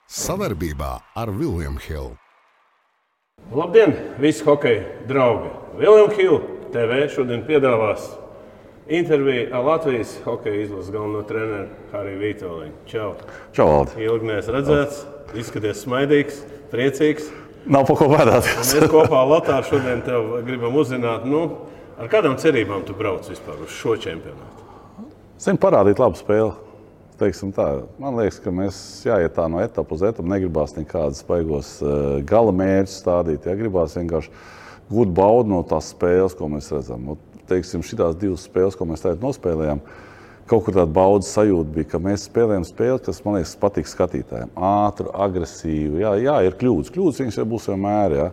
Savarbībā ar William Hill. Labdien, visi hokeja draugi! William Hill TV šodien piedāvās interviju ar Latvijas hokeja izlases galveno treneru Hariju Vītoliņu. Čau! Čau, Valdi! Ilgi neesmu redzēts, izskaties smaidīgs, priecīgs. Nav pa ko bēdāties. Mēs kopā ar Latāru šodien tev gribam uzzināt, ar kādām cerībām tu brauc vispār uz šo čempionātu? Zinu, parādīt labu spēli. Teiksim tā. Man liekas, ka mēs jāiet tā no etapu uz etapu. Negribās nekādas baigos gala mērķus stādīt. Ja? Gribās vienkārši gūt baudu no tās spēles, ko mēs redzam. Teiksim, šitās divas spēles, ko mēs tagad nospēlējām, kaut kur tāda baudas sajūta bija, ka mēs spēlējam spēli, kas, man liekas, patīk skatītājiem. Ātru, agresīvu. Jā, ir kļūdas. Kļūdas viņas būs vienmēr. Ja?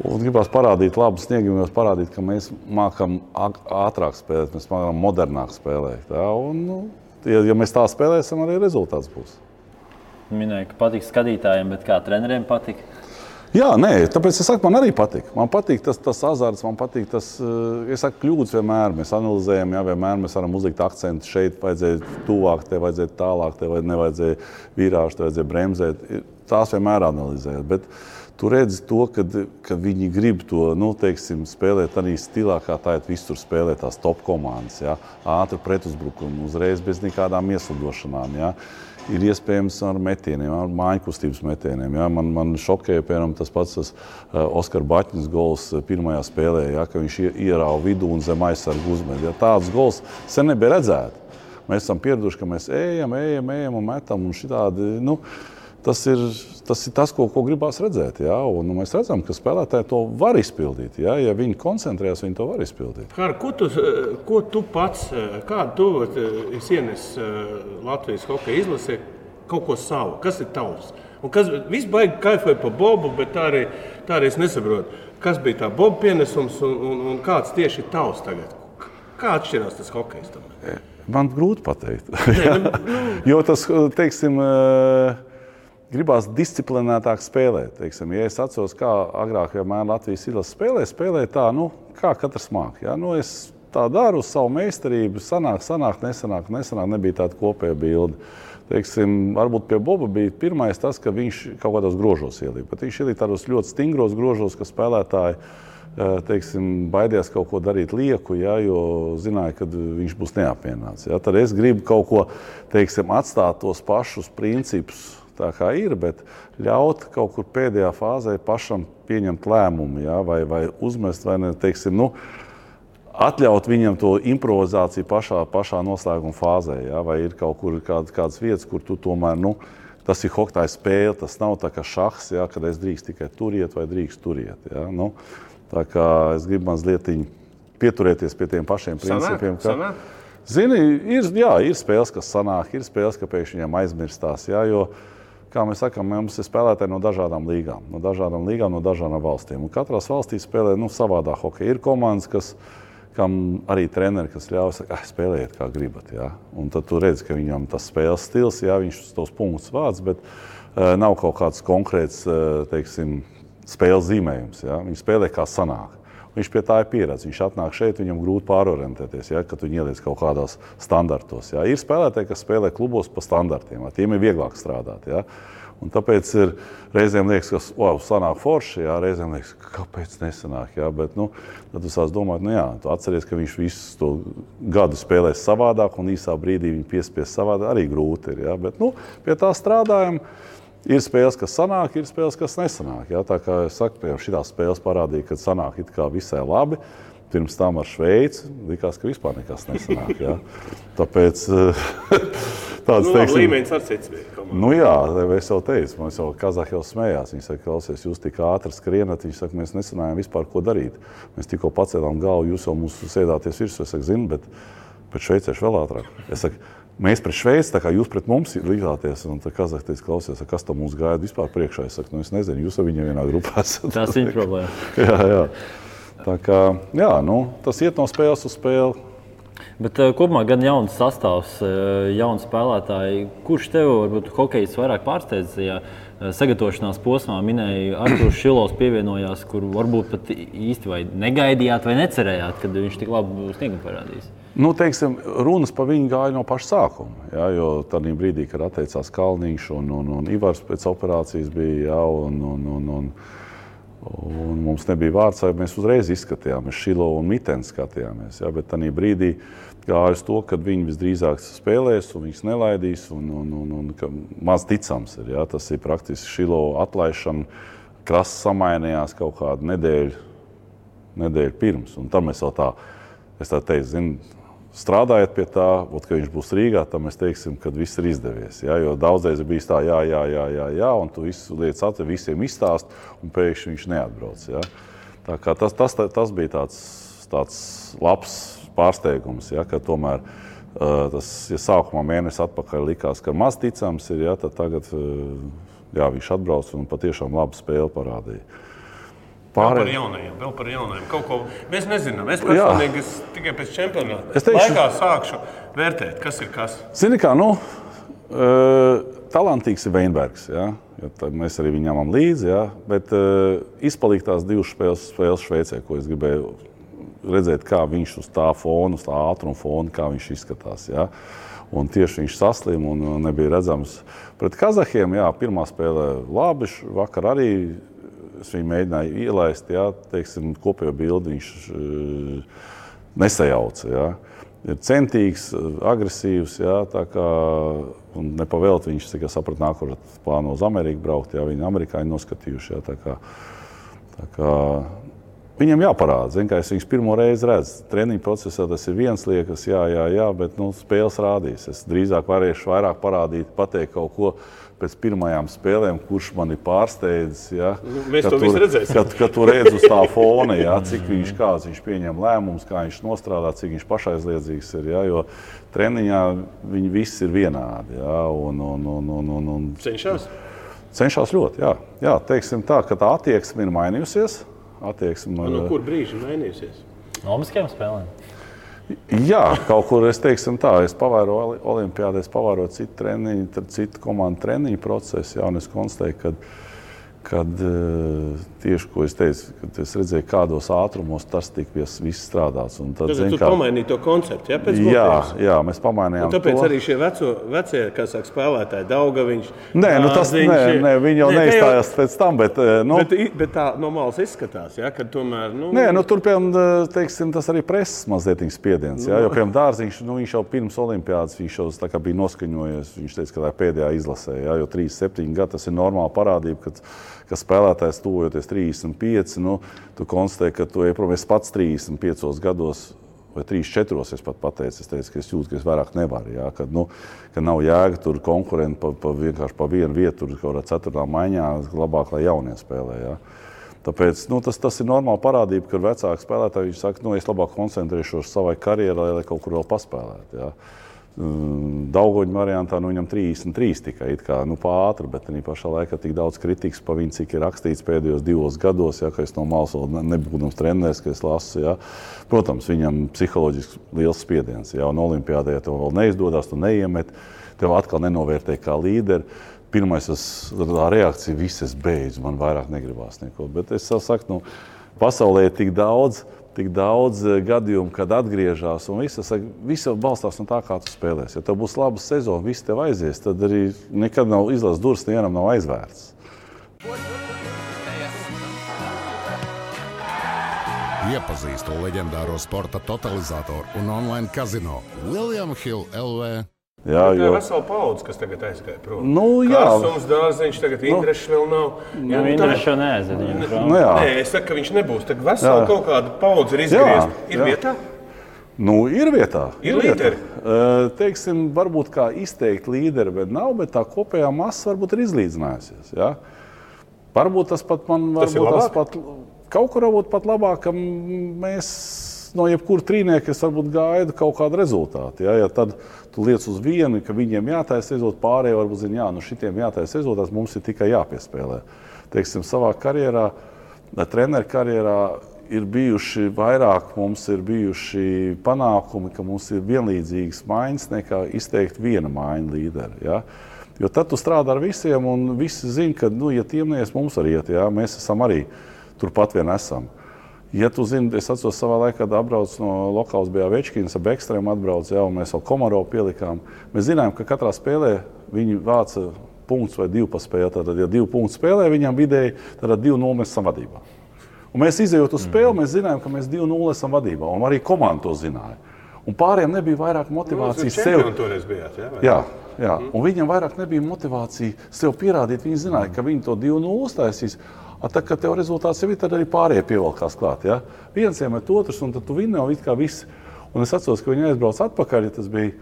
Un gribās parādīt labu sniegumu, parādīt, ka mēs mākam ātrāk spēlēt, mēs mākam modernāk spēlēt. Ja? Un, ja mēs tā spēlēsim, arī rezultāts būs. Minēju, ka patīk skatītājiem, bet kā treneriem patīk? Jā, nē, tāpēc es saku, man arī patīk. Man patīk tas azarts, man patīk tas, es saku, kļūdas vienmēr. Mēs analizējam, jā, vienmēr mēs varam uzlikt akcentu. Šeit vajadzēja tuvāk, te vajadzēja tālāk, te nevajadzēja vīrāžu, te vajadzēja bremzēt. Tās vienmēr analizējot. Bet tu redzi to, ka viņi grib to, spēlēt arī stilā, kā tā visur spēlē tās top komandas. Ja? Ātri pretuzbrukumu, uzreiz bez nekādām ieslidošanām. Ja? Ir iespējams ar metieniem, ar mājiņkustības metieniem. Ja? Man šokēja, piemēram, tas pats Oskar Baķņas gols pirmajā spēlē, ja? Ka viņš ierāva vidū un zem aizsargu uzmet. Ja? Tāds gols sen nebija redzēti. Mēs esam pieraduši, ka mēs ejam un metam un šitādi, Tas ir tas, ko gribās redzēt. Ja? Un mēs redzam, ka spēlētāji to var izpildīt. Ja, ja viņi koncentrējas, viņi to var izpildīt. Ko tu pats, kādu tu esi ienesis Latvijas hokeja izlasē, kaut ko savu? Kas ir tavs? Un kas viss baigi kaifoja pa Bobu, bet tā arī es nesaprotu. Kas bija tā Boba pienesums un kāds tieši ir tavs tagad? Kā atšķirās tas hokejs tam? Man grūti pateikt. Jo tas, teiksim, gribās disciplinētāk spēlēt. Teiksim, ja es atceros, kā agrāk vienmēr Latvijas izlase spēlē tā, kā katrs māk. Ja? Es tā daru uz savu meistarību, sanāk, nesanāk, nebija tāda kopēja bilde. Teiksim, varbūt pie Boba bija pirmais tas, ka viņš kaut kādos grožos ielīja. Bet viņš ielīja tādos ļoti stingros grožos, ka spēlētāji baidījās kaut ko darīt lieku, ja, jo zināja, ka viņš būs neapmienāts. Ja. Tad es gribu kaut ko, atstāt tos pašus principus, tā kā ir, bet ļaut kaut kur pēdējā fāzē pašam pieņemt lēmumu, ja, vai uzmest, vai ne, atļaut viņam to improvizāciju pašā noslēguma fāzē, ja, vai ir kaut kur kādas vietas, kur tu tomēr, tas ir hokeja spēle, tas nav tā kā šahs, ja, kad es drīkst tikai turiet vai drīkst turiet. Ja, tā kā es gribu mazliet pieturēties pie tiem pašiem principiem. Zini, ir spēles, kas sanāk, ir spēles, ka pēkšņi viņam aizmirstās, ja, jo kā mēs sakām, mums ir spēlētāji no dažādām līgām, no dažādām valstīm. Un katrās valstīs spēlē savādā hokeja. Ir komandas, kam arī treneri, kas ļauj, saka, spēlējiet kā gribat. Ja? Un tad tu redzi, ka viņam tas spēles stils, ja, viņš tos punktus vāc, bet nav kaut kāds konkrēts, spēles zīmējums. Ja? Viņš spēlē kā sanāk. Viņš pie tā ir pieredze. Viņš atnāk šeit, viņam grūti pārorientēties, ja, kad viņi ieliec kaut kādās standartos. Ja. Ir spēlētāji, kas spēlē klubos pa standartiem. Ja. Tiem ir vieglāk strādāt. Ja. Un tāpēc reizēm liekas, ka sanāk forši, ja. Reizēm liekas, kāpēc nesanāk. Ja. Bet tad tu sāc domāt, tu atceries, ka viņš visu to gadu spēlēs savādāk un īsā brīdī viņu piespies savādāk. Arī grūti ir. Ja. Bet pie tā strādājam. Ir spēles, kas sanāk, ir spēles, kas nesanāk. Ja? Tā kā es saku, piemēram, šitās spēles parādīja, ka sanāk it kā visai labi. Pirms tam ar Šveici likās, ka vispār nekas nesanāk. Ja? Tāpēc tāds līmenis ar cits bija. Jā, es jau teicu, man jau Kazahi jau smējās. Viņi saka, klausies, jūs tik ātri skrienat. Viņi saka, mēs nesanājām vispār, ko darīt. Mēs tikko pacēlām galvu, jūs jau mums sēdāties virsū. Es saku, zinu, bet šveicieši vēl ātrāk. Es saku, mēs pret Šveici, tā kā jūs pret mums likāties, un tā Kazahi teica, klausies, kas tam mums gaida vispār priekšā. Es saku, es nezinu, jūs ar viņiem vienā grupā esat. Tas ir problēma. Jā. Tā kā, tas iet no spēles uz spēli. Bet kopumā gan jauns sastāvs, jauni spēlētāji. Kurš tev varbūt hokejs vairāk pārsteidzajā sagatavošanās posmā? Minēja, Artūrs Šilovs pievienojās, kur varbūt pat īsti vai negaidījāt vai necerējāt, kad viņš tik labu sniegumu parādīs? Nu, teiksim, runas par viņu gāja no paša sākuma, jā, jo tādā brīdī, kad atteicās Kalniņš un Ivars pēc operācijas bija, jā, un mums nebija vārds, mēs uzreiz izskatījāmies, Šilo un Mitens skatījāmies, jā, bet tādā brīdī gāja uz to, ka viņi visdrīzāk spēlēs un viņus nelaidīs, un ka maz ticams ir, jā, tas ir praktiski Šilo atlaišana, Krasts samainījās kaut kādu nedēļu pirms, un tam mēs vēl es tā teicu, strādājot pie tā, ka viņš būs Rīgā, tad mēs teiksim, ka viss ir izdevies. Ja? Jo daudzreiz ir bijis tā, jā, un tu visu lietas atver, visiem izstāst, un pēkšņi viņš neatbrauc. Ja? Tā kā tas bija tāds labs pārsteigums, ja? Ka tomēr tas, ja sākumā mēnesi atpakaļ likās, ka maz ticams ir, ja? Tad tagad viņš atbrauc un patiešām labu spēli parādīja. Vēl par jaunajiem. Kaut ko mēs nezinām. Es personīgi tikai pēc čempionāta laikā sākšu vērtēt, kas ir kas. Zini kā, talantīgs ir Veinbergs, ja? Mēs arī viņam ņemam līdzi, ja? Bet izpalīk tās divas spēles Šveicē, ko es gribēju redzēt, kā viņš uz tā fona, uz tā ātruma fona, kā viņš izskatās. Ja? Un tieši viņš saslim un nebija redzams. Pret Kazahiem, pirmā spēlē labi, vakar arī es viņu mēģināju ielaist, teiksim, kopējo bildi viņš nesajauca. Ja. Ir centīgs, agresīvs, tā kā, un nepavēlt viņš, cik es sapratu, nākošais plāno uz Ameriku braukt, viņi amerikāņi noskatījuši. Tā kā viņam jāparāda, zin, kā es viņus pirmo reizi redzu. Treniņu procesā tas ir viens liekas, jā, bet spēles rādīs. Es drīzāk varēšu vairāk parādīt, pateikt kaut ko pēc pirmajām spēlēm, kurš mani pārsteidzis. Ja? Mēs to visu redzēsim. Kad tu redz uz tā fona, cik viņš pieņem lēmumus, kā viņš nostrādā, cik viņš pašaizliedzīgs ir. Ja? Jo treniņā viņi visi ir vienādi. Ja? Cenšas? Cenšas ļoti, jā. Teiksim tā, ka tā attieksme ir mainījusies. No kur brīži mainījusies? No olimpiskajām spēlēm? Jā, kaut kur es teiksim tā, es pavēroju olimpiādē, es pavēroju citu treniņu, citu komandu treniņu procesu, un es konstatēju, kad tieši, ko es teicu, kad es redzēju, kādos ātrumos tas tika viss strādāts. Tad tu pamainīji to konceptu, ja? Pēc jā, mēs pamainījām to. Un tāpēc arī šie vecie, kā saka, spēlētāji, Daugaviņš, Nē, viņi jau neizstājās pēc tam, bet tā no malas izskatās, ja? Kad tomēr, tur, piemēram, teiksim, tas arī preses mazliet spiediens, ja? Jo, piemēram, Dārziņš, viņš jau pirms olimpiādas, viņš jau tā kā bija noskaņojies, viņš teica, ka tā pēdējā izlasē, ja? Jo 37 gadi, tas ir normāla parādība, ka spēlētājs tuvojoties 35, tu konstatē, ka tu iepromies pats 35 gados vai 34, es pat pateicu, es teicu, ka es jūtu, ka es vairāk nevaru, ja? Ka nav jēga tur konkurenti vienkārši pa vienu vietu, tur kaut kādā 4. maiņā, labāk, lai jaunie spēlē, ja? Tāpēc, tas ir normāla parādība, ka vecāki spēlētāji, viņš saka, es labāk koncentrēšos savai karjerai, lai kaut kur vēl paspēlētu, ja? Daugoņu variantā viņam 33 tikai pātri, bet arī pašā laikā tik daudz kritikas par viņu, cik ir rakstīts pēdējos 2 gados, ka es no malas vēl nebūdams treneris, ka es lasu. Ja. Protams, viņam psiholoģiski liels spiediens. Ja, un olimpiādē tev vēl neizdodas, tu neiemet, tev atkal nenovērtē kā līderi. Pirmais, tā reakcija, viss es beidzu, man vairāk negribās neko. Bet es saku, pasaulē ir tik daudz gadījumu, kad atgriežās, un viss balstās no tā, kā tu spēlēsi. Ja tev būs laba sezona, viss tev aizies, tad arī nekad nav izlases durvis, nevienam nav aizvērts. Iepazīstu leģendāro sporta totalizatoru un online kazino William Hill LV. Jā, tā ir vesela paudze, kas tagad aizgāja prom. Kārsums, Dārziņš, tagad Indrešs vēl nav. Indrešs jau neaiziet. Nē, es saku, ka viņš nebūs. Tagad vesela kaut kāda paudze ir izgriezta. Ir vietā? Ir vietā. Ir līderi? Teiksim, varbūt kā izteikti līderi, bet nav, bet tā kopējā masa varbūt ir izlīdzinājusies. Ja? Varbūt tas pat man, kaut kur varbūt pat labāk, ka mēs no jebkura trīnieka es varbūt gaidu kaut kādu rezultātu. Ja tad tu liec uz vienu, ka viņiem jātaisa rezultāti, pārējie varbūt zina, šitiem jātaisa rezultāts, mums ir tikai jāpiespēlē. Teiksim, savā karjerā, treneru karjerā ir bijuši vairāk, mums ir bijuši panākumi, ka mums ir vienlīdzīgas maiņas nekā izteikt viena maiņa līderi. Ja? Jo tad tu strādā ar visiem un visi zina, ka, ja tiem neies, mums arī iet, ja? Mēs esam arī turpat vien esam. Ja tu zini, es atceros savā laikā, kad atbrauc no lokāls bija Večkins, ab ekstrēm atbrauc, jā, un mēs vēl Komarovu pielikām. Mēs zinājām, ka katrā spēlē viņi vāca punkts vai 2 pa spēli. Tātad, ja 2 punktu spēlē, viņam vidēji, tad 2-0 mēs esam vadībā. Un mēs izejot uz spēli, mēs zinājām, ka mēs 2-0 esam vadībā, un arī komanda to zināja. Un pārējiem nebija vairāk motivācijas sev. Bijāt, Jā. Un viņam vairāk nebija motivācija sev pierādīt. Viņi zināja, ka viņi to 2-0 uztaisīs. Tā, kad tev rezultāts jau ir, tad arī pārējie pievelkās klāt. Ja? Viens iemet otrs, un tad tu vinni jau it kā viss. Un es atceros, ka viņi aizbrauc atpakaļ, ja tas bija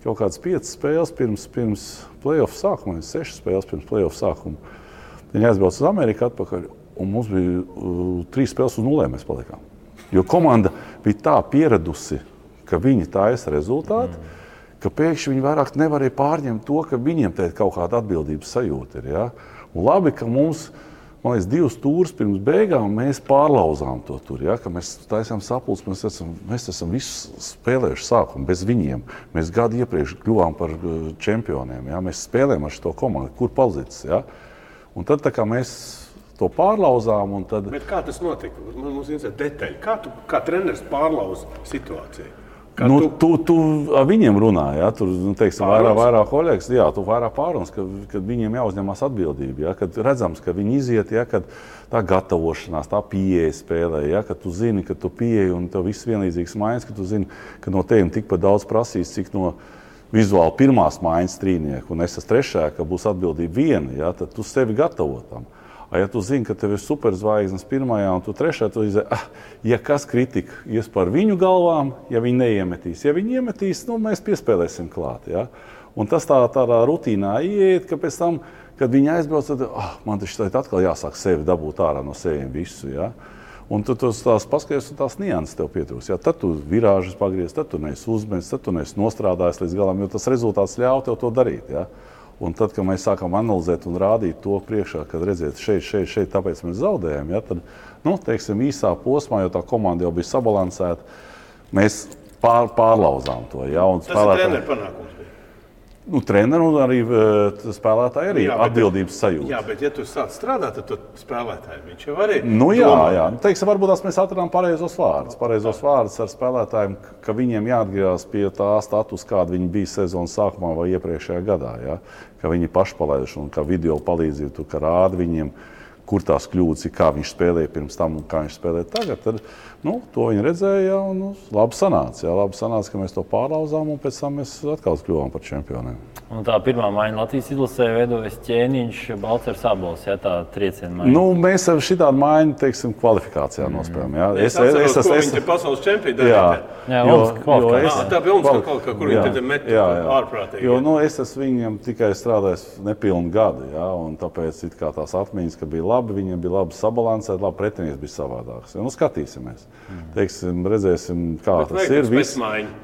kaut kāds 5 spēles pirms play-off sākuma, 6 spēles pirms play-off sākuma. Viņi aizbrauc uz Ameriku atpakaļ, un mums bija 3 spēles uz 0 mēs palikām. Jo komanda bija tā pieradusi, ka viņi taisa rezultātu, ka pēkšņi viņi vairāk nevarēja pārņemt to, ka viņiem te kaut kāda atbildības sajūta ir. Ja? Un labi, ka mums, man liekas, 2 stūrus pirms beigām mēs pārlauzām to tur. Ja? Ka mēs taisām sapulci, mēs esam visu spēlējuši sākumu bez viņiem. Mēs gadu iepriekš kļuvām par čempioniem. Ja? Mēs spēlējam ar šo komandu, kur palicis. Ja? Un tad tā kā mēs to pārlauzām. Un tad... Bet kā tas notika? Mums ir detaļi. Kā treneris pārlauz situāciju? Tu ar viņiem runā, ja? Tur, teiksim, vairāk kolēģis, jā, tu vairāk pārunas, kad viņiem jāuzņemās atbildība, ja? Kad redzams, ka viņi iziet, ja? Kad tā gatavošanās, tā pieeja spēlē, ja? Kad tu zini, ka tu pieeji un tev viss vienlīdzīgs maiņas, ka tu zini, ka no tevim tikpat daudz prasīs, cik no vizuāli pirmās maiņas trīnieku, un es esmu trešajā, ka būs atbildība viena, ja? Tad tu sevi gatavo tam. Ja tu zini, ka tev ir superzvaigznes pirmajā un tu trešajā, tu izdevi, ja kas kritika ies par viņu galvām, ja viņi neiemetīs. Ja viņi iemetīs, mēs piespēlēsim klāt. Ja? Un tas tādā rutīnā ieiet, ka pēc tam, kad viņi aizbrauc, tad man taču atkal jāsāk sevi dabūt ārā no seviem visu. Ja? Un tu tās paskaties, un tās nianses tev pietrūks. Ja? Tad tu virāžas pagriez, tad tu neesi uzmēs, tad tu neesi nostrādājis līdz galam, jo tas rezultāts ļauj tev to darīt. Ja? Un tad, kad mēs sākam analizēt un rādīt to priekšā, kad redziet šeit, tāpēc mēs zaudējam, ja, tad, teiksim, īsā posmā, jo tā komanda jau bija sabalansēta, mēs pārlauzām to. Ja, un tas ir treneru panākums. Treneru un arī spēlētāji arī atbildības sajūta. Jā, bet ja tu sāc strādāt, tad tu spēlētāji viņš jau arī jā. Teiksim, varbūt mēs atradām pareizos vārdus ar spēlētājiem, ka viņiem jāatgriežas pie tā status, kāda viņi bija sezonas sākumā vai iepriekšējā gadā. Ja? Ka viņi paši palaiduši un ka video palīdzību, tu kā rādi viņiem, kur tās kļūdas ir, kā viņš spēlēja pirms tam un kā viņš spēlēja tagad. Tad, to viņi redzēja un labi sanāca. Jā, labi sanāca, ka mēs to pārlauzām un pēc tam mēs atkal kļuvām par čempioniem. Un tā pirmā maiņa Latvijas izlasē veidojas Ķēniņš, Balcers, Abols, ja, tā trieciena maiņa. Mēs ar šitādu maiņu, teiksim, kvalifikācijā nospēlējām. Ja? Es atceros, ko viņi te pasaules čempioni darīja. Tā bija Olimpiskā, kur viņi te met ārprātīgi. Jo es esmu viņiem tikai strādājis nepilnu gadu, ja? Un tāpēc it kā tās atmiņas, ka bija labi, viņiem bija labi sabalansēti, labi pretinieks bija savādāks. Ja? Skatīsimies. Teiksim, redzēsim, kā tas ir.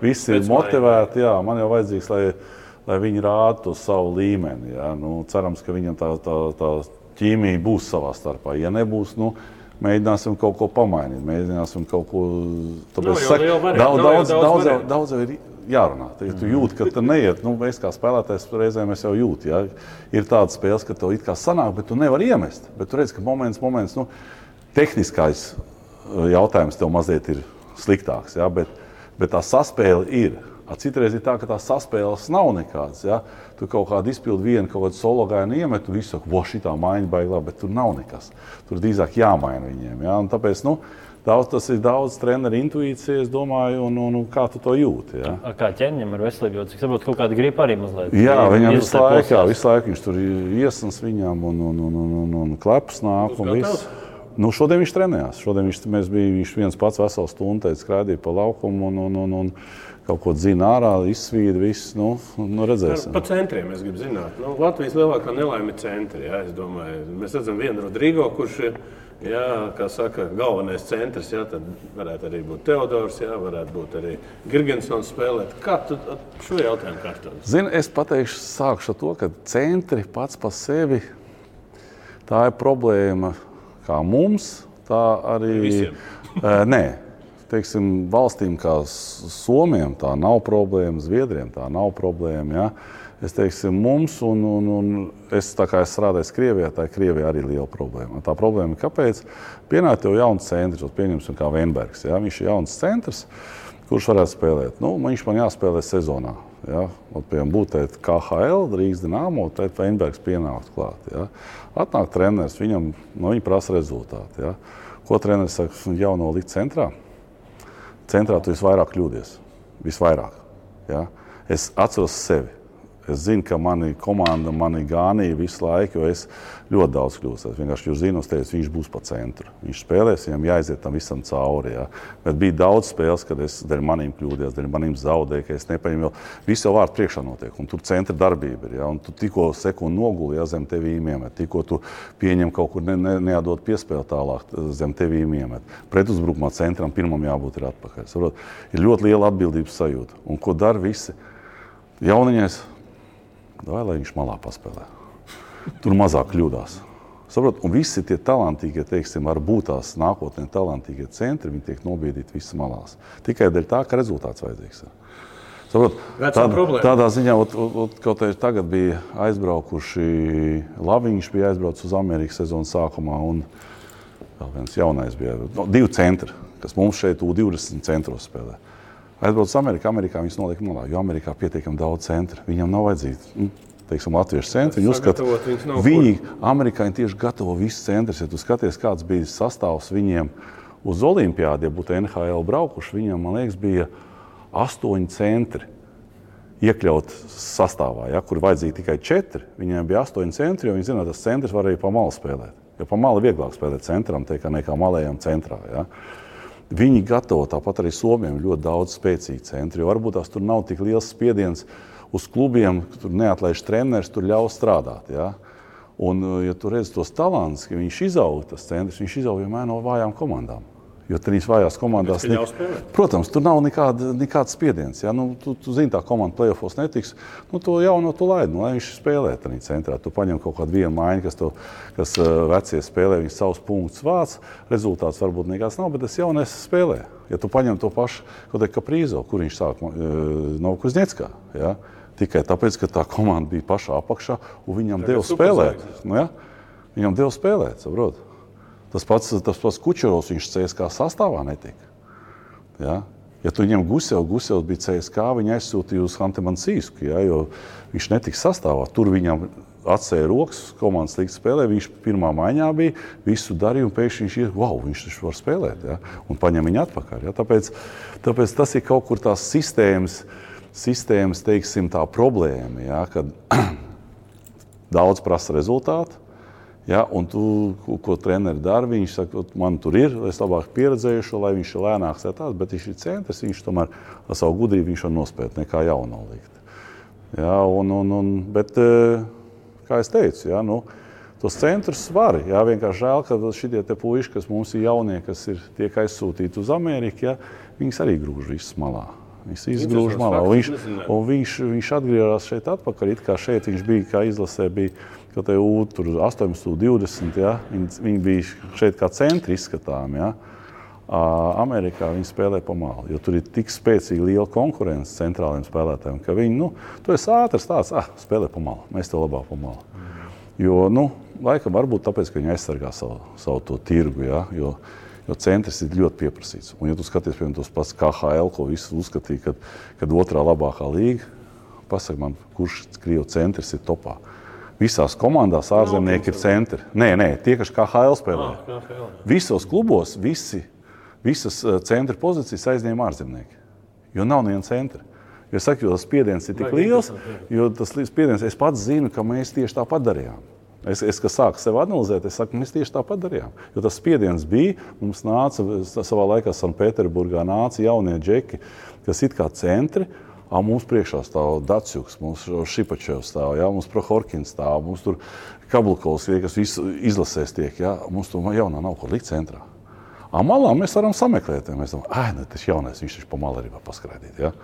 Visi ir motivēti, jā, man jau vajadzīgs, lai viņi rāda to savu līmeni. Ja? Cerams, ka viņam tā ķīmija būs savā starpā. Ja nebūs, mēģināsim kaut ko pamainīt, mēģināsim kaut ko... Daudz jau ir jārunā. Ja tu jūti, ka tu neiet, es kā spēlētājs reizēm es jau jūtu. Ja? Ir tādas spēles, ka tev it kā sanāk, bet tu nevar iemest. Bet tu redz, ka moments, tehniskais jautājums tev mazliet ir sliktāks, ja? Bet tā saspēle ir. Citreiz ir tā, ka tās saspēles nav nekādas. Ja? Tu kaut kādu izpildi vienu, kaut kādu solo gājienu iemet, un visu saka, šitā maiņa baigā, bet tur nav nekas. Tur drīzāk jāmaina viņiem. Ja? Un tāpēc, tas ir daudz treneru intuīcija, es domāju, un kā tu to jūti. Ja? Kā Ķēniņam ar veselību, cik saprotu, kaut kāda gripa arī mazliet? Jā, viņam visu laiku viņš tur iesnas viņam un kleps nāk un viss. Šodien viņš trenējās. Viņš viens pats veselu stundu skraidīja pa laukumu un kaut ko dzina ārā, izsvīda viss. Redzēsim. Pa centriem es gribu zināt. Latvijas lielākā nelaime ir centri. Jā, es domāju, mēs redzam vienu Rodrigo, kurš ir, kā saka, galvenais centrs. Jā, tad varētu arī būt Teodors, jā, varētu būt arī Girgensons spēlēt. Kā tu šo jautājumu kārtot? Zini, es pateikšu, sākšu ar to, ka centri pats pa sevi, tā ir problēma kā mums, tā arī... Visiem? Nē. Teiksim, valstīm kā Somijam tā nav problēma, Zviedriem tā nav problēma. Ja? Es teiksim, mums, un es tā kā es strādāju Krievijā, tā Krievijā arī liela problēma. Tā problēma ir, kāpēc pienāk tev jauns centrs, pieņemsim kā Veinbergs. Ja? Viņš ir jauns centrs, kurš varētu spēlēt. Nu, viņš man jāspēlē sezonā. Ja? Piemēram, būt KHL, Rīgas Dinamo, tad Veinbergs pienākt klāt. Ja? Atnāk treneris, viņam prasa rezultāti. Ja? Ko treneris saka, jauno likt centrā? Centrā tu visvairāk kļūdies. Visvairāk. Ja? Es atceros sevi. Es zinu, ka mani komanda mani gānīja visu laiku, jo es ļoti daudz kļūstos. Vienkārši jūs zinu, viņš būs pa centru. Viņš spēlēs, viņam jāiziet tam visam cauri. Ja? Bet bija daudz spēles, kad es dēļ manīm kļūdījos, dēļ manīm zaudēju, ka es nepaņemu. Viss jau vārdu priekšā notiek, un tur centra darbība ir. Ja? Un tu tikko sekundi noguli, ja, zem tevīm iemet. Tikko tu pieņem kaut kur neatdot piespēli tālāk, zem tevīm iemet. Pretuzbrukumā centram pirmam jābūt ir atpakaļ. Saprot? Ir ļoti liela atbildības sajūta. Un ko dara visi? Jauniņais, lai viņš malā paspēlē. Tur mazāk kļūdās. Saprot? Un visi tie talantīgie, teiksim, varbūt tās nākotnē talantīgie centri, viņi tiek nobiedīti visas malās. Tikai dēļ tā, ka rezultāts vajadzīgs. Saprot? Tādā ziņā, kaut arī tagad bija aizbraukuši, Laviņš bija aizbraucis uz Amerikas sezonas sākumā, un vēl viens jaunais bija. 2 centri, kas mums šeit U20 centros spēlē. Aizbrauc uz Amerikā, viņas noliek malā, jo Amerikā pietiekami daudz centru. Viņam nav vajadzīgi, teiksim, latviešu centri. Viņi uzskata, amerikāņi tieši gatavo visus centrus. Ja tu skaties, kāds bija sastāvs viņiem uz Olimpiādi, ja būtu NHL braukuši, viņiem, man liekas, bija 8 centri iekļaut sastāvā, ja, kur vajadzīgi tikai 4. Viņiem bija 8 centri, jo viņi zina, tas centrs var arī pa malu spēlēt. Jo pa malu vieglāk spēlēt centram, nekā malējam centrā. Ja. Viņi gatavo, tāpat arī Somiem, ļoti daudz spēcīgi centri, jo varbūt tās tur nav tik liels spiediens uz klubiem, tur neatlaiž treneris, tur ļauj strādāt. Ja? Un, ja tu redzi tos talants, ka viņš izaug, tas centrs, viņš izaug vienmēr no vājām komandām. Jo trīs vājās komandās, protams, tur nav nekāds spiediens. Ja? Nu, tu zini, tā komanda play-offos netiks, nu, to jauno tu laidi, lai viņš spēlē tādā centrā. Tu paņem kaut kādu vienu maiņu, kas vecie spēlē, viņš savus punktus vāc, rezultāts varbūt nekāds nav, bet tas jaunais spēlē. Ja tu paņem to pašu, kaut kā Prīzo, kur viņš sāk no Kuzņeckā, ja? Tikai tāpēc, ka tā komanda bija pašā apakšā, un viņam deva spēlēt. Nu, ja? Viņam deva spēlēt, saprot? Tas pats Kučerovs, viņš CSK sastāvā netika. Ja? Ja tu ņem Gusevs bija CSK, viņi aizsūtīja uz Hantemansīsku, ja? Jo viņš netika sastāvā. Tur viņam atsēja rokas, komandas līdz spēlē, viņš pirmā maiņā bija, visu darīja, un pēkšņi viņš viņš taču var spēlēt, ja? Un paņem viņu atpakaļ. Ja? Tāpēc tas ir kaut kur tās sistēmas, teiksim, tā problēma, ja? Kad daudz prasa rezultātu. Ja, un tu, ko treneri dara, viņš saka, man tur ir, es labāk pieredzējušo, lai viņš ir lēnāks, bet viņš ir centrs, viņš tomēr ar savu gudrību viņš var nospēt, nekā jauno likt. Ja, bet, kā es teicu, ja, tos centrus var, ja, vienkārši žēl, ka šitie te puiši, kas mums ir jaunie, kas tiek aizsūtīti uz Ameriku, ja, viņas arī grūž visas malā. Viņas izgrūž malā, un viņš atgriežas šeit atpakaļ, it kā šeit viņš bija, kā izlasē bija, ka te tur 18, 20, ja, viņi bija šeit kā centri izskatām, ja. Amerikā viņi spēlē pa malu, jo tur ir tik spēcīgi liela konkurence centrāliem spēlētājiem, ka viņi, tu esi ātrs tāds, spēlē pa malu, mēs tev labāk pa malu. Jo, laikam varbūt tāpēc, ka viņi aizsargā savu to tirgu, ja, jo centrs ir ļoti pieprasīts. Un, ja tu skaties, piemēram, tos pats KHL, ko visi uzskatīja, kad otrā labākā līga, pasaka man, kurš Krievu centrs ir topā. Visās komandās ārzemnieki ir centri. Nē, tie, kas KHL spēlē. Visos klubos visas centra pozīcijas aizņēma ārzemnieki. Jo nav neviena centra. Jo saku, jo tas spiediens ir tik liels, es pats zinu, ka mēs tieši tāpat darījām. Es kad sāku sevi analizēt, es saku, mēs tieši tāpat darījām. Jo tas spiediens bija, mums nāca, savā laikā Sanpēterburgā nāca jaunie džeki, kas it kā centri, mums priekšā stāv Datsjuks, mums Šipačevs stāv, ja? Mums Prohorkins stāv, mums tur Kablukovs, kas izlasēs tiek, ja? Mums tur jaunā nav ko likt centrā. Malā mēs varam sameklēt, mēs domājam, tas jaunais, viņš taču pa malu arī var paskraidīt, ja?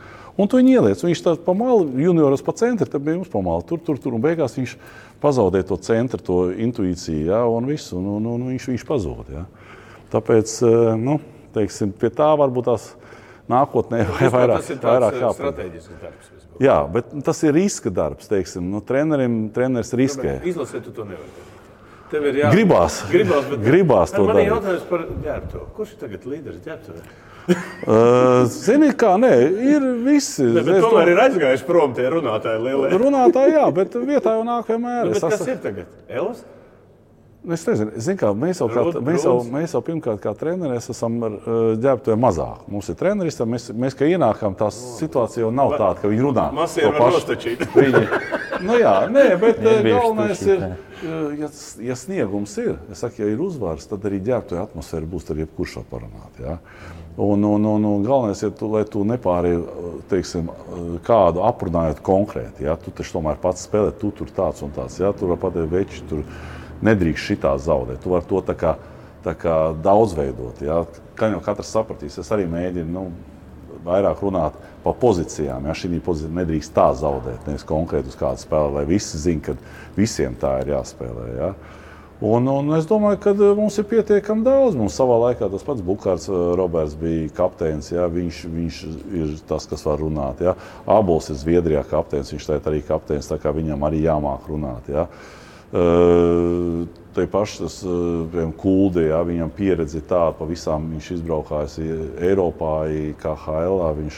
Un tu viņu ieliec, viņš tā pa malu, junioros pa centri, tad bija mums pa malu, tur, un beigās viņš pazaudē to centru, to intuīciju, ja? Un visu, un viņš pazūd, ja? Tāpēc, teiksim, pie tā varbūt tās nākotnē vai vairāk kāpēc. Strateģisks darbs. Jā, bet tas ir riska darbs, teiksim. Treneris riskē. Izlasē tu to nevar. Tev ir Gribās to darīt. Man ir jautājums par ģērbtuvi. Kurš ir tagad līderis ģērbtuvē? Zini kā, nē, ir visi. Bet tomēr ir aizgājuši prom tie runātāji lielie. Runātāji, jā, bet vietā jau nāk vienmēr. Bet kas ir tagad? Elas? Es nezinu, kā, mēs jau pirmkārt kā treneri esam ģērbtuvē mazāk. Mums ir treneris, mēs kā ienākam, tā situācija jau nav tāda, ka viņi runā. Masieri var nostačīt. Nu jā, nē, bet galvenais ir, ja sniegums ir, es saku, ja ir uzvars, tad arī ģērbtuvē atmosfēra būs ar jebkurš aparunāt, jā. Un galvenais ir, lai tu nepārēji, teiksim, kādu aprunājot konkrēti, jā. Tu taču tomēr pats spēlē, tu tur tāds un tāds, jā, tur var pateikt veči, tur nedrīkst šitā zaudēt. Tu vari to tā kā daudzveidot. Ja? Kā jau katrs sapratīs, es arī mēģinu vairāk runāt par pozīcijām. Ja? Šī pozīcija nedrīkst tā zaudēt, nevis konkrēti uz kādu spēli, lai visi zina, ka visiem tā ir jāspēlē. Ja? Un es domāju, ka mums ir pietiekami daudz. Mums savā laikā tas pats Bukārts Roberts bija kapteinis. Ja? Viņš ir tas, kas var runāt. Ja? Ābols ir Zviedrijā kapteinis, viņš tagad arī kapteinis, tā kā viņam arī jāmāk runāt. Ja? Te paši tas Kuldi, ja, viņam pieredzi tāda, pa visām viņš izbraukājis Eiropā, KHL, viņš,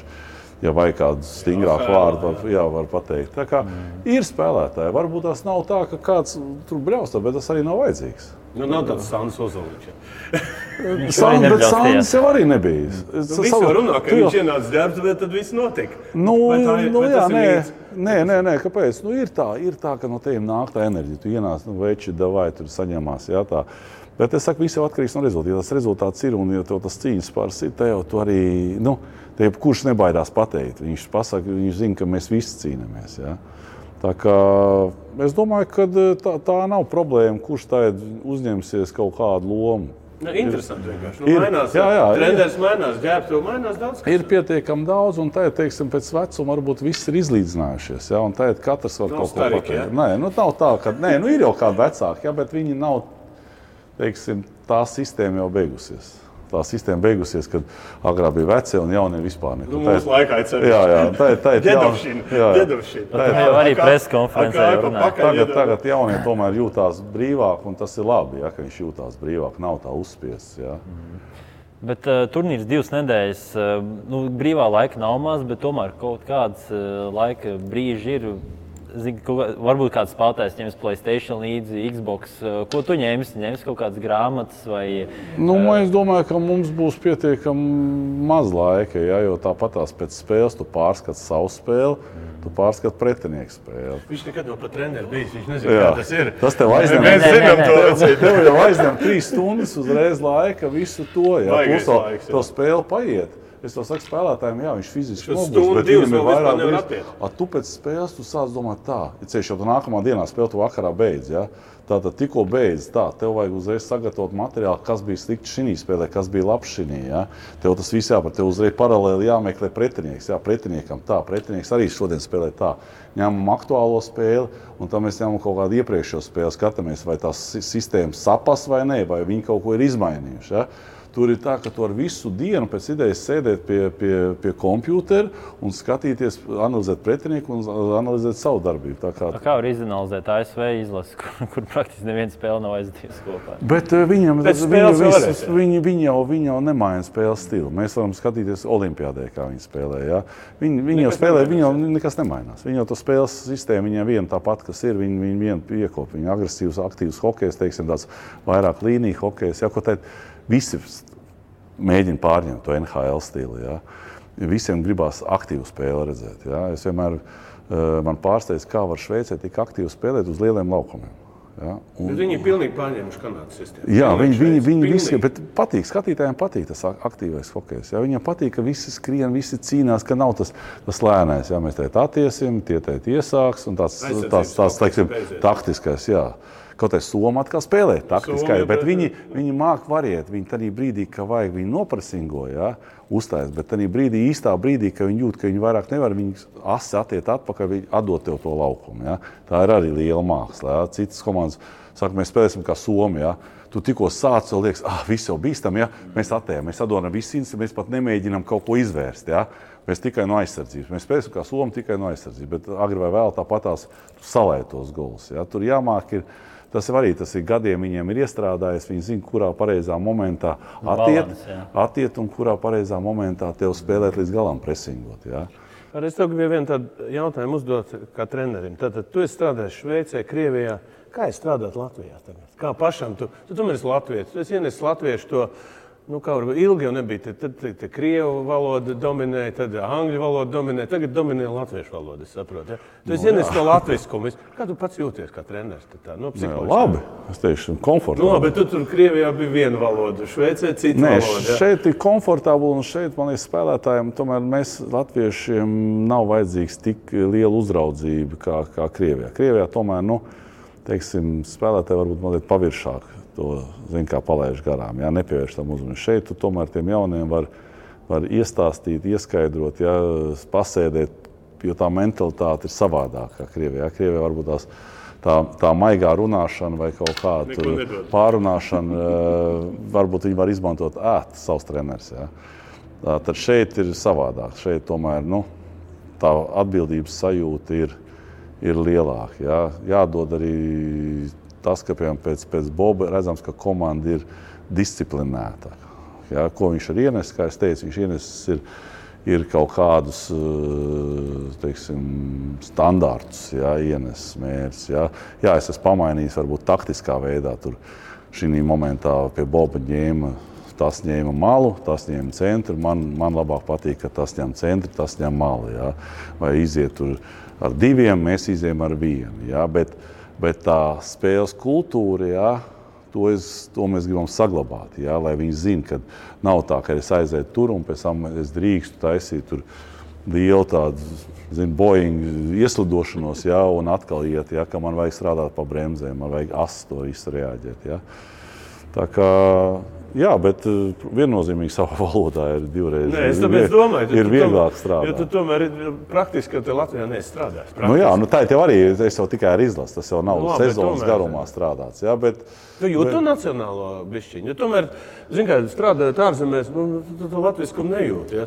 ja vajag kādu stingrāku vārdu, var pateikt. Tā kā ir spēlētāji, varbūt tas nav tā, ka kāds tur brauc, bet tas arī nav vajadzīgs. Nav tāds Sandis Ozoliņš. Bet Sandis jau arī nebija. Visi jau runā, ka viņš ienāca ģērbtuvē, tad viss notika. Nē, kāpēc? Ir tā, ka no teiem nāk tā enerģija. Tu ienāc, veči, davai, tur saņemās, jā, tā. Bet es saku, viss jau atkarīgs no rezultāta. Ja tas rezultāts ir un ja tev tas cīņas pārs ir, te jau tu arī, te kurš nebaidās pateikt. Viņš pasaka, viņš zina, ka mēs visi cīnamies, jā. Tā kā es domāju, ka tā nav problēma, kurš tagad uzņemsies kaut kādu lomu. Interesanti vienkārši. Treneris mainās, ģērbtuve mainās daudz. Ir pietiekami daudz, un tagad, teiksim, pēc vecuma varbūt viss ir izlīdzinājušies, ja, un tagad katrs var kaut ko pateikt. Nē, nav tā, ka, ir jau kādi vecāki, ja, bet viņi nav, teiksim, tā sistēma jau beigusies. Tā sistēma beigusies, kad agrāk bija vecie un jaunie vispār neko. Mūsu laikā ir ceļš. Jā. Ģedovšina. Arī preskonferencē runāja. Tagad jaunie tomēr jūtās brīvāk, un tas ir labi, ja, ka viņš jūtās brīvāk, nav tā uzspiests. Ja. Bet turnīrs 2 nedēļas, brīvā laika nav maz, bet tomēr kaut kāds laika brīži ir. Varbūt kāds spēlētājs ņems PlayStation līdzi, Xbox. Ko tu ņemsi? Ņemsi kaut kādas grāmatas vai... Es domāju, ka mums būs pietiekami maz laika, ja, jo tāpatās pēc spēles tu pārskati savu spēli, tu pārskati pretinieku spēli. Viņš nekad nav pat treneri bijis, viņš nezina, kā tas ir. Tas tev aizņem. Mēs zinām to. Tev jau aizņem 3 stundas uzreiz laika, visu to, ja. Plus to spēli paiet. Es to saku spēlētājiem, jā, viņš fiziski nogurs, bet viņam ir vairāk brīz. Tu pēc spēles tu sāc domāt tā, ja ceļš jau tu nākamā dienā spēli tu vakarā beidz, ja? Tātad tikko beidz tā, tev vajag uzreiz sagatavot materiālu, kas bija slikti šinī spēlē, kas bija labs šinī, ja? Tev tas viss jāpar, tev uzreiz paralēli jāmeklē pretinieks, jā, pretiniekam tā, pretinieks arī šodien spēlē tā. Ņemam aktuālo spēli, un tam mēs ņemam kaut kādu iepriekšējo spēli, skatāmies, vai tās sistēmas sapas vai ne, vai viņi kaut ko ir izmainījuši, ja? Tur ir tā, ka tu ar visu dienu pēc idejas sēdēt pie kompjūtera un skatīties, analizēt pretinieku un analizēt savu darbību. Kā var izanalizēt ASV izlasi, kur praktiski neviena spēle nav aizdījusi kopā? Bet viņi jau nemaina spēles stilu. Mēs varam skatīties olimpiādē, kā viņi spēlē. Ja? Viņi jau spēlē, viņi jau nekas nemainās. Viņi jau to spēles sistēmu, viņiem viena tāpat, kas ir, viņi vienu piekop. Viņi agresīvs, aktīvs hokejs, teiksim, tāds vairāk līniju hokejs. Ja, ko teikt, visi mēģina pārņemt to NHL stilu. Ja. Visiem gribās aktīvu spēli redzēt. Ja. Es vienmēr man pārsteidz, kā var Šveicē tik aktīvi spēlēt uz lieliem laukumiem. Ja. Bet viņi pilnīgi pārņēmuši Kanādas sistēmu. Jā, viņi visi, bet patīk, skatītājiem patīk tas aktīvais hokejs. Ja. Viņiem patīk, ka visi skrien, visi cīnās, ka nav tas lēnais. Ja. Mēs teikt attiesim, tie teikt iesāks un tāds teiksim, taktiskais. Jā. Kaut arī Soma atkal spēlē taktiski, bet viņi māk variet. Viņi tādā brīdī, ka vajag, viņi nopresingo, uzstājas, bet tādā īstā brīdī, ka viņi jūt, ka viņi vairāk nevar, viņi asi attiet atpakaļ, viņi atdot tev to laukumu. Tā ir arī liela māksla. Citas komandas saka, mēs spēlēsim kā Somi. Tu tikko sāc, jau liekas, viss jau bīstam, mēs attējam, mēs atdodam visu institūciju, mēs pat nemēģinām kaut ko izvērst. Mēs tikai no aizsardzības. Mēs spēlēsim kā Somi tikai no aizsardzības, bet agri vai vēl tāpatās salēt tos golus. Tur jāmāk tas ir gadiem viņiem ir iestrādājies, viņi zina, kurā pareizā momentā attiet un kurā pareizā momentā tev spēlēt līdz galam presingot. Es tev gribēju vienu tādu jautājumu uzdot kā trenerim. Tātad tu esi strādājis Šveicē, Krievijā. Kā ir strādāt Latvijā tagad? Kā pašam? Tu tomēr esi latvietis. Tu esi ienesis latviešu to, kā varbūt ilgi jau nebija. Tad krievu valoda dominēja, tad angļu valoda dominēja. Tagad dominē latviešu valoda, es saprotu. Tu esi ienesis to latviskumu. Kā tu pats jūties kā treneris? Labi, es teikšu, komfortabli. Bet tu tur Krievijā bija viena valoda, Šveicē cita valoda. Šeit ir komfortabli un šeit, man liekas, spēlētājiem, tomēr mēs latviešiem nav vajadzīgs tik liela uzraudzība kā Krievijā. Krievijā tomēr, teiksim, spēlētāji varbūt mazliet paviršāk to, kā palaiž garām, nepievērš tam uzmanību. Šeit tu tomēr tiem jauniem var iestāstīt, ieskaidrot, pasēdēt, jo tā mentalitāte ir savādākā Krievijā. Krievijā varbūt tā maigā runāšana vai kaut kāda pārunāšana, varbūt viņi var izmantot savs treneris. Tad šeit ir savādāk. Šeit tomēr, tā atbildības sajūta ir lielāka. Jādod arī tas, ka pēc Boba redzams, ka komanda ir disciplinētāka. Ko viņš ir ienesis, kā es teicu, viņš ienesis ir kaut kādus, teiksim, standārtus, ienesis mērķus. Es esmu pamainījis varbūt taktiskā veidā. Tur šī momentā pie Boba tas ņēma malu, tas ņēma centru. Man labāk patīk, ka tas ņem centru, tas ņem malu. Vai iziet tur ar diviem, mēs izējam ar vienu. Bet tā spēles kultūra, to mēs gribam saglabāt. Lai viņi zina, ka nav tā, ka es aizēju tur un pēc tam es drīkstu taisīt tur lielu tādu, Boeing ieslidošanos, un atkal iet, ka man vajag strādāt pa bremzēm, man vajag to visu reaģēt. Tā kā, bet viennozīmīgi savā valodā ir divreiz. Es tāpēc domāju, ir vieglāk strādāt. Jo tu tomēr praktiski, ka te Latvijā neesi strādājis. Tā tev arī, es jau tikai ar izlasu, tas jau nav sezonas garumā strādāts. Tu jūti to nacionālo bišķiņu, jo tomēr, strādājot ārzemēs, tu latviskumu nejūti.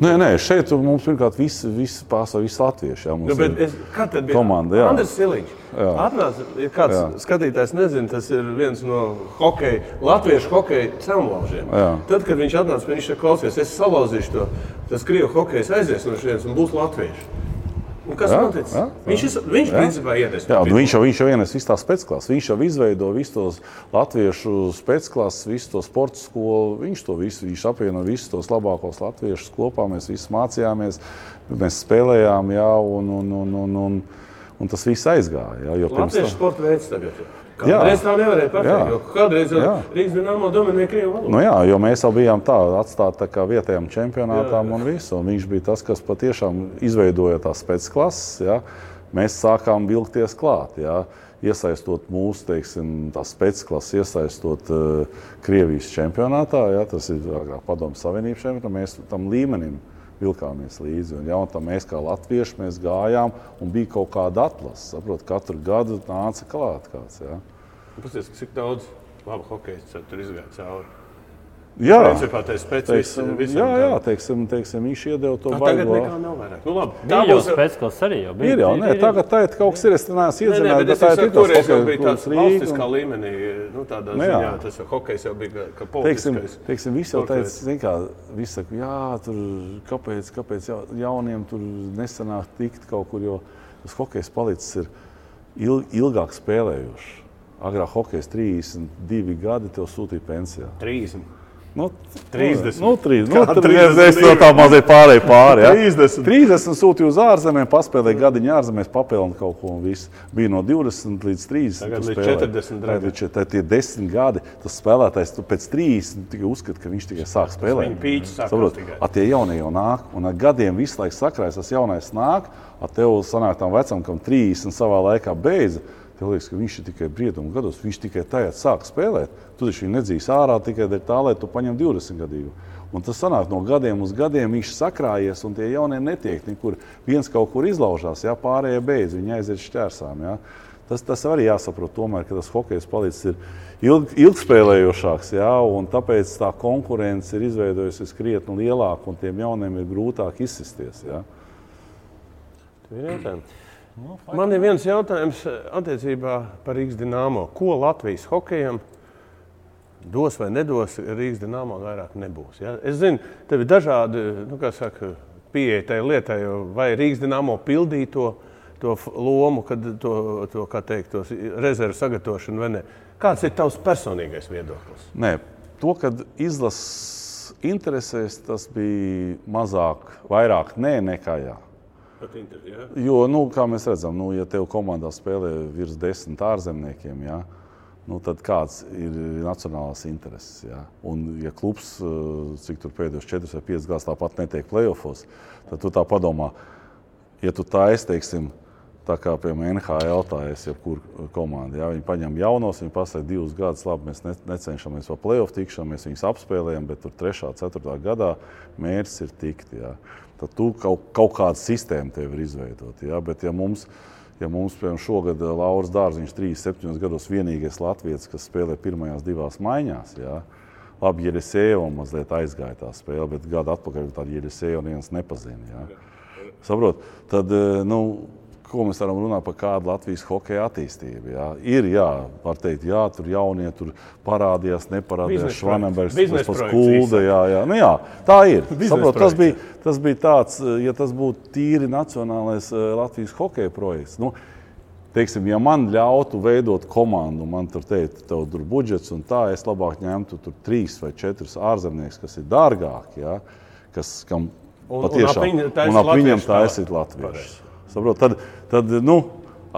Nē, šeit mums pirmkārt visi latvieši. Kā tad bija komanda? Andris Siliņš. Atnāca, ja kāds skatītājs nezina, tas ir viens no latviešu hokeja celmlaužiem. Tad, kad viņš atnāca, viņš klausies, es salauzīšu to, tas krievu hokejs aizies no šeit un būs latvieši. Un kas noticis? Viņš principā ienes. Viņš jau ienes visu tās specklases. Viņš jau izveido visu tos latviešu specklases, visu to sporta skolu. Viņš apvieno visus tos labākos latviešus kopā. Mēs visi mācījāmies, mēs spēlējām, un tas viss aizgāja. Latviešu sporta veids tagad. Kādreiz tā nevarēja pateikt, jo kādreiz Rīgas Dinamo dominēja krievu valodu. Jo mēs jau bijām atstāti vietējām čempionātām un visu. Un viņš bija tas, kas patiešām izveidoja tās specklases. Mēs sākām vilkties klāt. Iesaistot mūsu, teiksim, tās specklases, iesaistot Krievijas čempionātā. Tas ir Padomju Savienības čempionātā. Mēs tam līmenim vilkāmies līdzi. Un mēs kā latvieši mēs gājām un bija kaut kāda atlase. Saprot, katru gadu nāca klāt kāds. Pasties, cik daudz labu hokejistu tur izgāja cauri? Principā tā ir specifiski. Teiksim, viņš iedeva to baigo. Tagad nekā nav vairāk. Labi. Tā būs spēcklases arī jau bija. Ir jau, tagad tā ir kaut kas ir, es neesmu iedzināju, bet tā ir toreiz jau bija tāds valstiskā līmenī, tādā ziņā, tas jau hokejs jau bija kā politiskais. Teiksim, viss jau teica, viss saka, tur kāpēc jauniem tur nesanāk tikt kaut kur, jo tas hokejs palicis ir ilgāk spēlējuši. Agrāk hokejs 32 gadi tev sūtīja pensijā. 30. 30. 30. Es to tā mazliet pārēju pāri. 30 sūtīju uz ārzemēm, paspēlēju gadiņu ārzemēs, papilnu kaut ko un viss. Bija no 20 līdz 30. Tagad līdz 40. Tad tie 10 gadi, tas spēlētājs pēc 30 tikai uzskata, ka viņš tikai sāk spēlēt. Viņa pīķis sākās tikai. Tie jaunie jau nāk, un ar gadiem visu laiku sakrājas, tas jaunais nāk, tev sanāk tam vecam, kam 30 savā laikā beidza. tev liekas, ka viņš ir tikai briedumu gados, viņš tikai tajā sāk spēlēt. Tu taču viņu nedzīs ārā tikai dēļ tā, lai tu paņem 20 gadīgu. Un tas sanāk no gadiem uz gadiem, viņš sakrājies un tie jaunie netiek nekur. Viens kaut kur izlaužās, jā, pārējie beidz, viņi aiziet šķērsām. Jā. Tas arī jāsaprot tomēr, ka tas hokejs palicis ir ilgspēlējošāks, jā, un tāpēc tā konkurence ir izveidojusies krietni lielāka un tiem jauniem ir grūtāk izsisties. Jā. Man ir viens jautājums attiecībā par Rīgas Dinamo. Ko Latvijas hokejam dos vai nedos, Rīgas Dinamo vairāk nebūs? Ja? Es zinu, tev ir dažādi pieeja tai lietai, vai Rīgas Dinamo pildīja to lomu, kad tos rezervu sagatavošanu vai ne. Kāds ir tavs personīgais viedoklis? Nē, to, kad izlases interesēs, tas bija vairāk nē nekā jā. Ja? Jo, kā mēs redzam, ja tev komandā spēlē virs 10 ārzemniekiem, jā, tad kāds ir nacionālās intereses. Jā. Un, ja klubs, cik tur pēdējos 4 vai 5 gadus tāpat netiek play-offos, tad tu tā padomā, ja tu teiksim, tā kā piemēram NHL jebkur komanda, jā, viņi paņem jaunos, viņi pasaka 2 gadus, labi, mēs necenšamies par play-off tikšanu, mēs viņus apspēlējam, bet tur 3. 4. gadā mērķis ir tikt. Jā. Tad tu kaut kādu sistēmu tev ir izveidot. Jā. Bet ja mums piemēram, šogad Lauris Dārziņš 37 gados vienīgais latvietis, kas spēlē pirmajās 2 maiņās, jā. Labi, Jeļisejeva mazliet aizgāja tā spēle, bet gadu atpakaļ tādu Jeļisejeva neviens nepazina. Jā. Saprot? Tad, ko mēs varam runāt par kādu Latvijas hokeja attīstību? Jā. Ir, var teikt, tur jaunie tur parādījās, neparādījās Švanenbergs, tas pats Kulda, jā. Jā, tā ir. Saprot, tas bija tāds, ja tas būtu tīri nacionālais Latvijas hokeja projekts. Teiksim, ja man ļautu veidot komandu, man tur teikt, tev tur budžets un tā, es labāk ņemtu tur 3 vai 4 ārzemnieks, kas ir dārgāki, jā, kam patiešām, un ap viņiem taisīt latviešus. Saprot, tad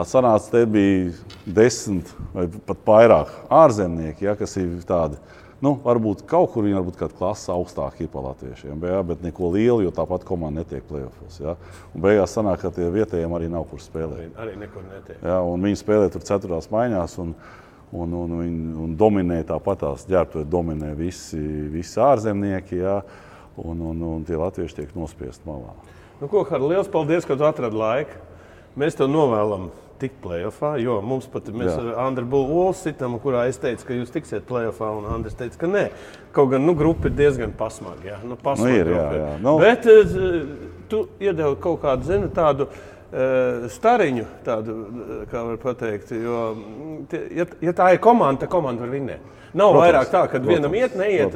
sanāca, te bija 10 vai pat vairāk ārzemnieki, ja, kas ir tādi, varbūt kaut kur viņi varbūt kāda klasa augstāk ir pa latviešiem, bet neko lielu, jo tāpat komanda netiek play-offos. Ja. Un beigās sanāk, ka tie vietējiem arī nav kur spēlēt. Arī nekur netiek. Ja, un viņi spēlē tur 4. maiņās un dominē tāpatās, ģērbtuvē dominē visi ārzemnieki, ja, un tie latvieši tiek nospiesti malā. Hardi, liels paldies, ka tu atradi laiku. Mēs tev novēlam tikt play-offā, jo mēs ar Andru Bulolu sitam, kurā es teicu, ka jūs tiksiet play-offā, un Andris teica, ka nē. Kaut gan, grupa ir diezgan pasmaga, jā. Ir, jā. Bet tu iedevi kaut kādu, tādu stariņu, tādu, kā var pateikt, jo, ja tā ir komanda, tad komanda var vinnēt. Nav vairāk tā, kad vienam iet, neiet,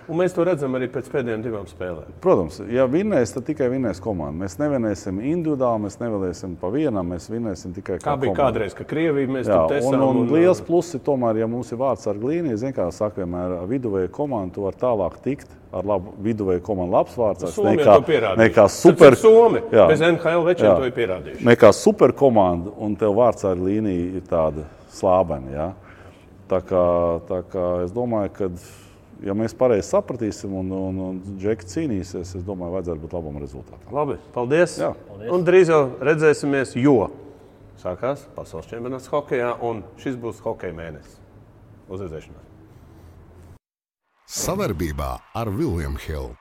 un mēs to redzam arī pēc pēdējām 2 spēlēm. Protams, ja vinnēs, tad tikai vinnēs komanda. Mēs nevinēsim individuāli, mēs nevinēsim pa vienam, mēs vinnēsim tikai kā komanda. Kā bija kādreiz, ka Krievija mēs tur tesām. Un liels pluss ir tomēr, ja mums ir vārdsarga līnija, zin kā saka vienmēr, viduvēja komanda, tu var tālāk tikt ar labu viduvēju komandu labs vārdsargs. Nekā super... Somi, bez NHL večiem to ir pierādījuši. Nekā super komanda, un tev vārdsarga līnija ir tāda slābena, jā. Tā kā es domāju, ka ja mēs pareizi sapratīsim un Džeki cīnīsies, es domāju, vajadzētu būt labam rezultātam. Labi, paldies. Un drīz jau redzēsimies, jo sākās pasaules čempionāts hokejā, un šis būs hokeja mēnesis. Uz redzēšanos. Savarbībā ar William Hill.